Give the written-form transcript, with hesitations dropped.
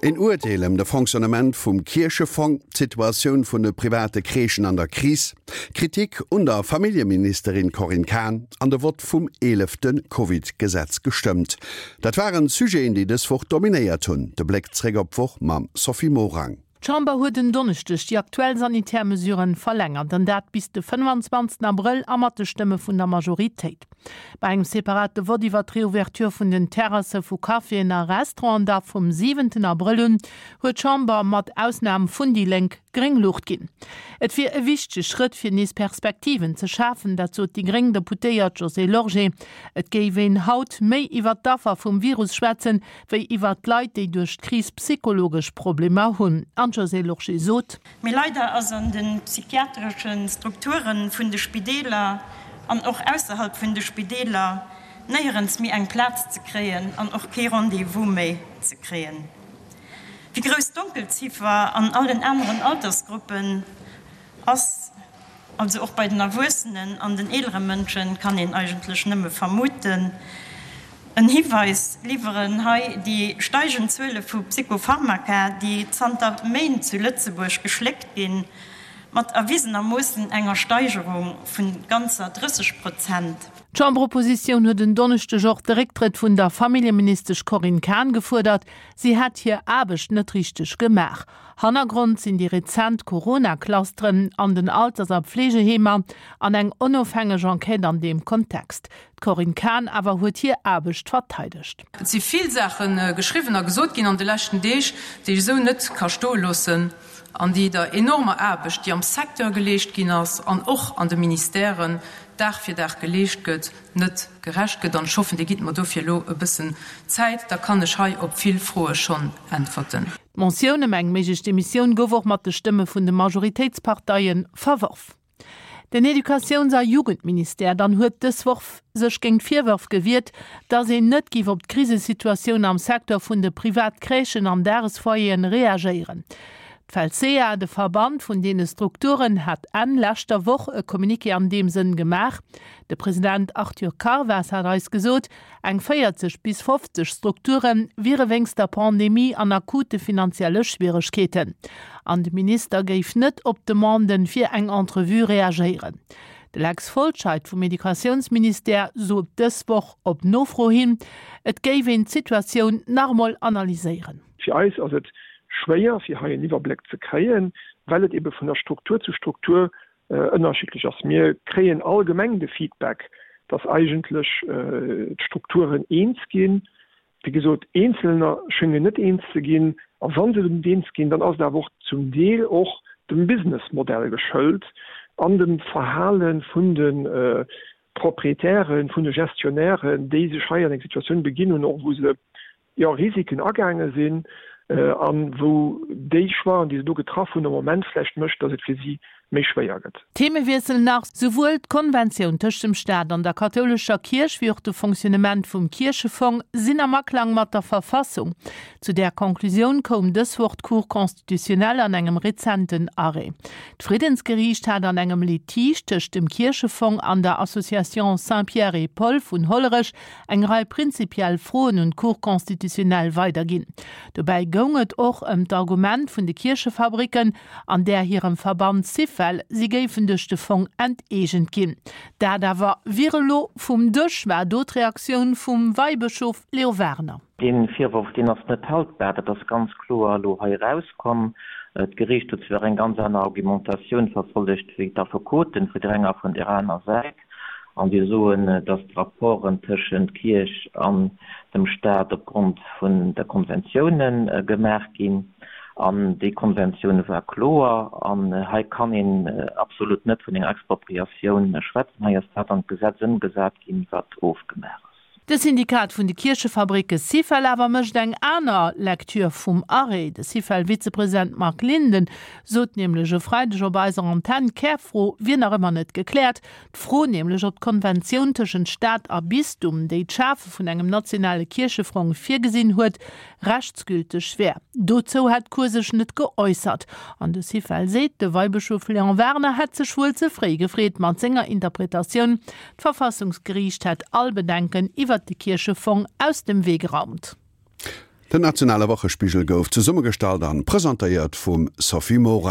Een Urteel ëm de Fonctionnement vum Kierchefong, d'Situatioun vun de private Crèchen an der Kris, Kritik un der Familljeministerin Corinne Cahen an de Vott vum eelefte Covid-Gesetz gestëmmt. Dat waren d'Sujeten, déi dës Woch dominéiert hunn. De Bléck zréck op d'Woch mam Sophie Morang. D'Chamber huet en Donneschdeg déi aktuell sanitär Mesuren verlängert, an dat bis de 25 Abrëll a mat de Stëmme vun der Majoritéit. Bei engem separate Vott iwwer d'Reouverture vun den Terrasse vu Caféen a Restauranten da vum siwenten Abrëll un, huet d'Chamber, mat Ausnam vun déi Lénk, gréng Luucht ginn. Et wier e wichtege Schrëtt fir nees Perspektiven ze schafen, dat sot déi gréng Deputéiert Josée Lorgé. Et géif een haut méi iwwer d'Affer vum Virus schwätzen, wéi iwwert d'Leit, déi duerch d'Kris psychologesch Problemer hunn. An d'Josée Lorsché sot. Mee leider ass an de psychiatresche Strukture vun de Spideeler an och ausserhalb vun de Spideeler néierens méi eng Plaz ze kréien an och kee Rendez-vous méi ze kréien. Wéi grouss d'Donkelziffer an allen aneren Altersgruppen ass, Also och bei den Erwuessenen an den eelere Mënschen, kann een eigentlech nëmme vermuten. En Hiweis liwweren hei déi steigend Zuele vu Psychopharmaka, déi zanter Méint zu Lëtzebuerg geschléckt ginn, mat erwisenermoossen enger Steigerung vu ganzer 30 Prozent. D'Chamberoppositioun huet en Donneschdeg och de Récktrëtt vun der Familljeministesch Corinne Cahen gefuerdert. Si hätt hir Aarbecht net richteg gemaach. Hannergrond sinn déi rezent Corona-Clusteren an den Alters a Pflegeheemer an eng onofhängeg Enquête an deem Kontext. D'Corinne Cahen awer huet hir Aarbecht verteidegt. Et si vill Saache geschriwwen a gesot ginn an de leschten Deeg, déi ech esou net ka stoe loossen an déi der enormer Aarbecht, déi am Secteur geleescht ginn ass an och an de Ministèren Dag fir Dag geleescht gëtt, net gerecht gëtt. An ech hoffen, Dir gitt mer dofir elo e bëssen Zäit, da kann ech hei op vill Froe schonn äntwerten. D'Motioun ëm eng méiglech Demissioun gouf och mat de Stëmme vun de Majoritéitsparteie verworf. Den Educatiouns a Jugendministère dann huet dës Woch sech géint d'Virwërf gewiert, datt een net géif op d'Krisesituatioun am Secteur vun de Privatcrèchen an Dagesfoyeren reagéieren. D'Felsea, de Verband vun deene Strukturen, hat Enn leschter Woch e Communiqué an deem Sënn gemaach. De President Arthur Carvas hat eis gesot, Eng 40 bis 50 Strukture wiere wéinst der Pandemie an akute finanzielle Schwieregkeeten. An de Minister géif net op Demanden fir eng Entrevue reagéieren. De Lex Folscheid vum Educatiounsministère sot dës Woch op Nofro hin, et géif een d'Situatioun nach emol analyséieren. Fir eis ass et schwéier, fir hei en Iwwerbléck ze kréien, well et ebe vun der Struktur zu Struktur ënnerschiddlech ass. Mir kréien allgemeng de Feedback, dass eigentlech d'Strukturen eens ginn. Wéi gesot, eenzelner schéngen net eens ze ginn. A wa se net eens ginn, dann ass et awer och zum Deel och dem Businessmodell geschëlt an dem Verhale vun de Proprietären, vun de Gestionnairen, déi sech hei an eng Situatioun beginn hunn, och wou se jo, Risiken agaange sinn a wou déi Choixen, déi se do getraff hunn, am Moment vläicht mécht, datt et fir si méi schwéier gëtt. Themewiessel nach, Souwuel d'Konventioun tëscht dem Staat an der kathoulescher Kierch wéi och de Fonctionnement vum Kierchefong sinn am Aklang mat der Verfassung. Zu där Conclusioun koum dës Woch d'Cour constitutionnelle an engem rezenten Arrêt. D'Friddensgeriicht hat an engem Litige tëscht dem Kierchefong an der Association Saints-Pierre et Paul vun Hollerech eng Rei prinzipiell Froen un d'Cour constitutionnelle weiderginn. Dobäi goung et och ëm d'Argument vun de Kierchefabricken an där hirem Verband Syfel, si géifen duerch de Fong enteegent ginn. Dat awer wier elo vum Dësch, war do d'Reaktioun vum Weibëschof Leo Wagener. Dee Virworf, deen ass net haltbar. Dat ass ganz kloer elo hei erauskomm. D'Geriicht huet zwar eng ganz aner Argumentatioun verfollegt wéi d'Affekoten vun der enger a vun där aner Säit. An déi soen, datt d'Rapporten tëschent Kierch an dem Staat opgrond vun der Konventioune gemaach ginn. An déi Konventioun war kloer. An hei kann een absolut net vun enger Expropriatioun schwätzen. Hei ass dat an d'Gesetz ëmgesat ginn, wat ofgemaach ass. De Syndikat vun de Kierchefabricke Syfel awer mécht eng aner Lecture vum Arrêt. De Syfel-Vizepresident Marc Linden sot nämlech e Freideg op eiser Antenn, d'Kärfro wier nach ëmmer net gekläert. D'Fro nämlech, ob d'Konventioun tëschent Staat a Bistum, déi d'Schafe vun engem nationale Kierchefrong virgesinn huet, rechtsgülteg wär. Dozou hätt d'Cour sech net geäussert. An de Syfel seet, de Weibëschof Léon Werner hätt sech wuel ze fréi gefreet mat senger Interpretatioun, D'Verfassungsgeriicht hätt all Bedenken iwwert de Kierchefong aus dem Wee geraumt. Den nationale Wochespigel gouf zesummegestallt an presentéiert vum Sophie Morang.